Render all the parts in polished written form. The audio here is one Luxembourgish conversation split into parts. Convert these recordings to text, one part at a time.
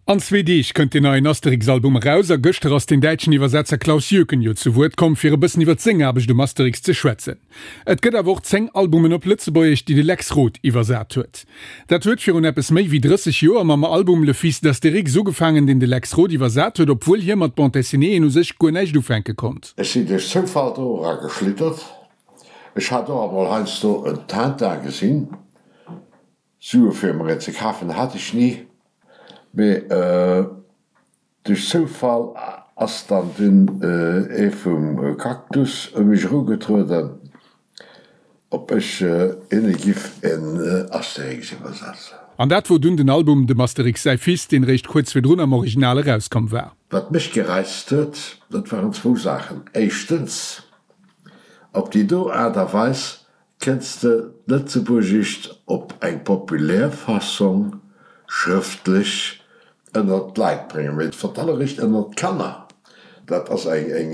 An zwee Deeg kënnt deen neien Asterix-Album eraus a gëschter ass den däitschen Iwwersetzer Klaus Jöken jo zu Wuert komm, fir e bëssen iwwer seng Aarbecht um Asterix ze schwätzen. Et gëtt awer och 10 Albumen op Lëtzebuergesch, déi de Lex Roth iwwersat huet. Dat huet virun eppes méi wéi 30 Joer mam Album Le fils d'Astérix ugefaangen, deen de Lex Roth iwwersat huet, obwuel hie mat Bande dessinéeën u sech guer näischt ufänke konnt. Ech sinn duerch Zoufall do era geschlittert. Ech hat och emol heiansdo en Tintin gesinn. Sue fir mer een ze kafen hat ech ni, mee duerch Zoufall ass dann dunn ee vum Cactus u mech erugetrueden, ob ech hinne giff en Asterix iwwersetzen. An dat wor dunn den Album Dem Asterix säi Fils, deen réischt kuerz virdrun am Original erauskomm war. Wat mech gereizt huet, dat waren zwou Saachen. Éischtens, op déi do Aart a Weis Kenns de d'Lëtzebuergescht op eng populär Fassong schrëftlech ënnert d'Leit bréngen, mee vertallerecht ënnert d'Kanner? Dat ass eng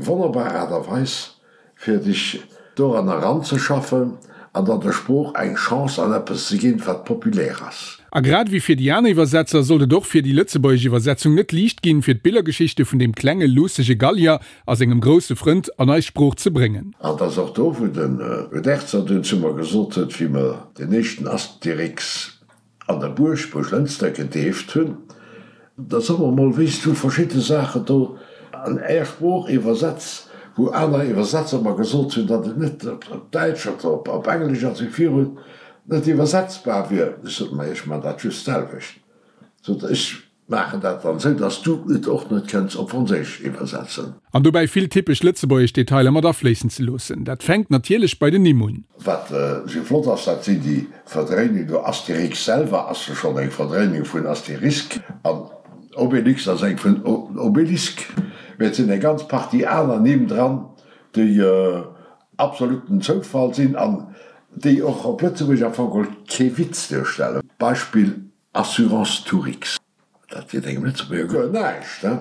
wonnerbar Aart a Weis, fir dech doran eranzeschaffen an dann der Sprooch eng Chance an eppes ze ginn, wat populär ass. A grad ewéi fir déi aner Iwwersetzer sollt et och fir déi lëtzebuergesch Iwwersetzung net liicht ginn, fir d'Billergeschichte vun deem klenge luussege Gallier a sengem grousse Frënd an eis Sprooch ze bréngen. An 't ass och do, wou den Uderzo dunn zu mer gesot huet, wéi mer den éischten Asterix an der Buerg, Buerglënster, gedeeft hunn, Da so mer mol, wéi s du verschidde Saachen do an är Sprooch iwwersetz, wou aner Iwwersetzer mer gesot hunn, datt et net op Däitsch oder op Englesch a sou virun net iwwersetzbar wier. Ech sot, Ma ech man dat just d'selwecht, sot ech. Maachen dat dann sou, dass du et och net kënns op Franséisch iwwersetzen. An dobäi vill typesch lëtzebuergesch Detailer mat afléissen ze loossen. Dat fänkt natierlech bei den Nimm un. Wat sou flott ass, dat sinn déi Verdréinungen do. Astérix selwer ass jo schonn eng Verdréinung vun Asterisk an Obélix ass eng vun Obélisque. Mee et sinn eng ganz Partie aner Nimm dran, déi absoluten Zoufall sinn an déi och op Lëtzebuergesch am Fong geholl kee Witz duerstellen. Beispill Assurance Tourix, dat seet engem Lëtzebuerger guer näischt, he?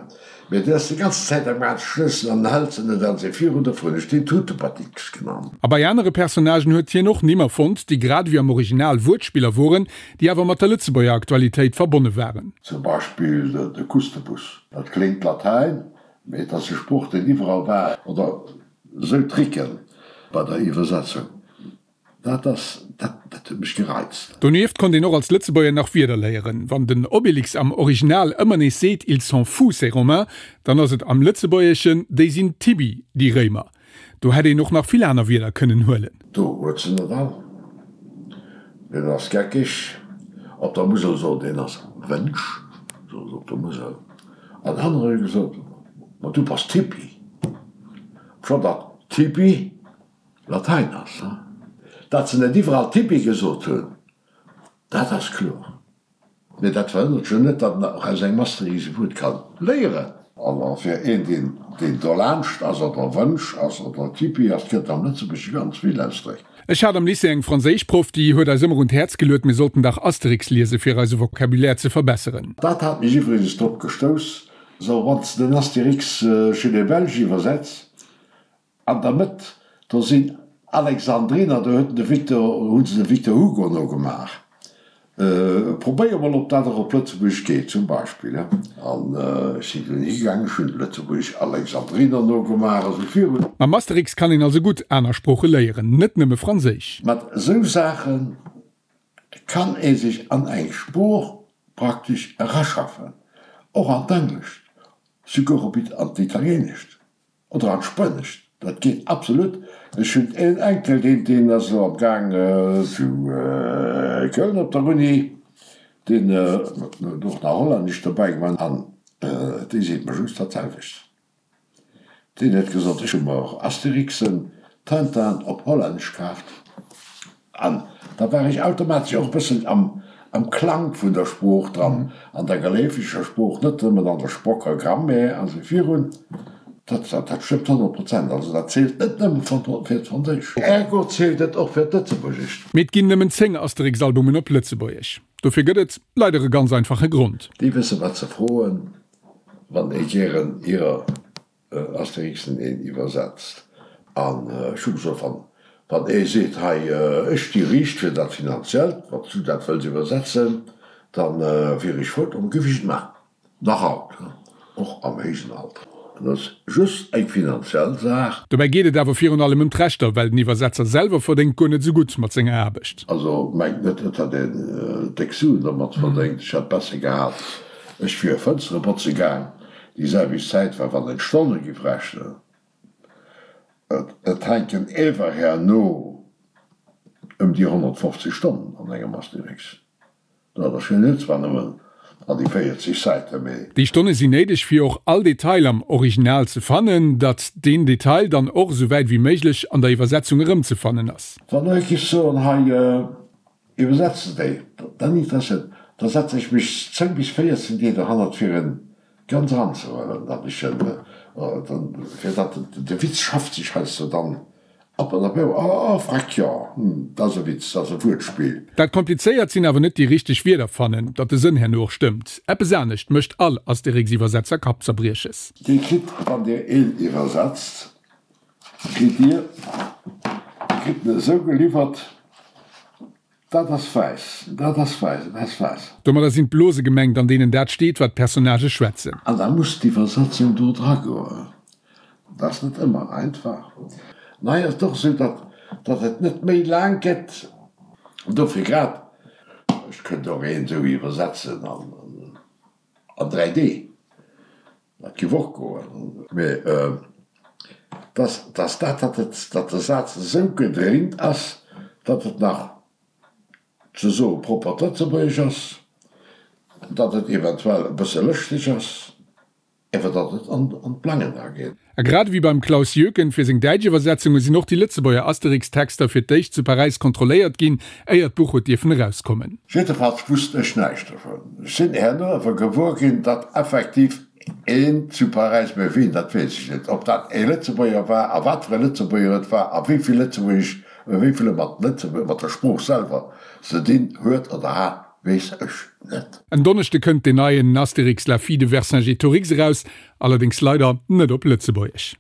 Mee deen ass déi ganzen Zäit am Gaang ze schnëssen an den hält se net an se virun, dofir hunn ech deen Tutepatix genannt. A bei anere Personnagen huet hien och Nimm erfonnt, déi grad ewéi am Original Wuertspiller woren, déi awer mat der Lëtzebuerger Aktualitéit verbonne waren. Zum Beispill de Kustebus, dat kléngt Latäin, mee et ass e Sproch, deen iwwerall war, oder esou Tricken bei der Iwwersetzung. Dat ass, dat, dat huet mech gereizt. Donieft konnt een och als Lëtzebuerger nach Wierder léieren. Wann den Obélix am Original ëmmer nees seet Ils sont fous, ces Romains, dann ass et am Lëtzebuergeschen Déi sinn Tibi, déi Réimer. Do hätt een och nach vill aner Wierder kënnen huelen. Do huet se net all. Deen ass geckeg. Op der Musel sot een ass Wënsch, sot se op der Musel. An anerer hu gesot, Ma du bass Tipi. Scho datt Tipi Latein ass. Datt se net iwwerall Tipi gesot hunn, dat ass kloer. Mee dat verhënnert jo net, datt en och aus engem Asterix e Wuert ka léieren. A fir een, deen deen dolaanscht ass oder Wënsch ass oder Tipi ass, gëtt am Lëtzebuergesche ganz vill Ausdréck. Ech hat am Lycée eng Franséischproff, déi huet eis ëmmer un d'Häerz geluet, mir sollten dach Asterix liesen, fir eise Vocabulaire ze verbesseren. Dat hat mech iwwregens drop gestouss, sou wann s de den Astérix chez les Belges iwwersetz, An der Mëtt, do sinn Alexandriner, do huet de Victor, hu se de Victor Hugo nogemaach. Probéier mol, ob dat och op Lëtzebuergesch geet, zum Beispill. An ech sinn dunn higaangen, ech hunn Lëtzebuergesch Alexandriner nogemaach a sou virun. Mam Asterix kann een also gutt aner Sprooche léieren, net nëmme Franséisch. Mat esou Saache kann ee sech an eng Sprooch praktesch eraschaffen, och an d'Englescht, souguer op an d'Italienescht. Oder an d'Spuenescht, dat geet absolut. Ech hunn een Enkel, deen, deen ass elo am Gaang zu Köln op der Uni, deen huet och nach Hollännesch dobäi gemaach an dee seet mer just dat selwecht. Deen huet gesot, ech hu mer Asterixen, Tintin op Hollännesch kaaft. An da war ech automatesch och e bëssen am am Klang vun der Sprooch dran, an der geléifeger Sprooch, net nëmmen an der Sprocker Grammaire a sou virun. Dat dat stëmmt 100%. Also dat zielt net nëmme fir d'Franséisch. Ergo zielt et och fir d'Lëtzebuergescht. Mee et ginn nëmmen 10 Asterix-Albumen op Lëtzebuergesch. Dofir gëtt et leider e ganz einfache Grond. Déi wësse wat se froen, wann ee gären hirer Asterixen een iwwersetzt. An ech hu gesot, wann, wann ee seet, hei, ech sti riicht fir dat Finanziellt, wann s du dat wëlls iwwersetzen, da wier ech frou, da géif ech et maachen. Nach haut, och am héijen Alter. Et ass just eng finanziell Saach. Dobäi geet et awer virun allem ëm d'Rechter, well den Iwwersetzer selwer verdéngt guer net esou gutt mat senger Aarbecht. Also mengt net, et hätt een déck Suen domat verdéngt. Ech hätt besser gehat, ech wier Fënstere botze gaang, déi selwecht Zäit war, wann een d'Stonne giff rechnen. Et hänken ewer herno ëm déi 150 Stonnen an engem Asterix. Dat ass jo net zwar nëmmen an déi 40 Säite, mee. Déi Stonne sinn néideg, fir och all Detail am Original ze fannen, datt deen Detail dann och esou wäit wéi méiglech an der Iwwersetzung erëmzefannen ass. Wann ech géif soen, hei iwwersetze déi, dann interesséiert, da setze ech mech 10 bis 14 Deeg dohannert fir en ganz eranzehuelen, datt ech en, fir datt de Witz schafft sech heiansdo dann Ab an op, oh freck, jo, hm, dat ass e Witz, dat ass e Wuertspill. Dat Komplizéiert sinn awer net déi richteg Wierder fannen, datt de Sënn herno och stëmmt. Eppes anescht mécht all Astérix-Iwwersetzer Kappzerbrieches. Dir kritt, wann Dir een iwwersetzt, kritt Dir, Dir kritt en esou geliwwert, Dat ass wäiss, dat ass wäiss, dat ass wäiss. Domadder sinn d'Blose gemengt, an deenen dat steet, wat d'Personnagë schwätzen. An da muss d'Iwwersetzung do dra goen. Dat ass net ëmmer einfach. An hei ass et och esou, datt, datt et net méi laang gëtt. Dofir grad, ech kënnt och een esou iwwersetzen an, an 3 Dee. Dat géif och goen. Mee dass, dass dat, datt et, datt de Saz esou gedréint ass, datt et nach ze soe proppert Lëtzebuergesch ass, datt et eventuell e bësse lëschteg ass, awer datt et an d'Plangen erageet. A grad ewéi beim Klaus Jöken fir seng däitsch Iwwersetzunge sinn och déi Lëtzebuerger Asterix-Texter fir d'éischt zu Paräis kontrolléiert ginn, éier d'Buch huet dierfen erauskommen. Jiddefalls wusst ech näischt dovun. Ech sinn herno awer gewuer ginn, datt effektiv een zu Paräis, mä wien, dat weess ech net, ob dat ee Lëtzebuerger war a wat fir e Lëtzebuerger et war a wéi vill Lëtzebuergesch, wéi vill e mat Lëtzebuerg, mat der Sprooch selwer ze dinn huet oder hat, weess ech net. En Donneschde kënnt deen neien Astérix, la fille de Vercingétorix eraus, allerdéngs leider net op Lëtzebuergesch.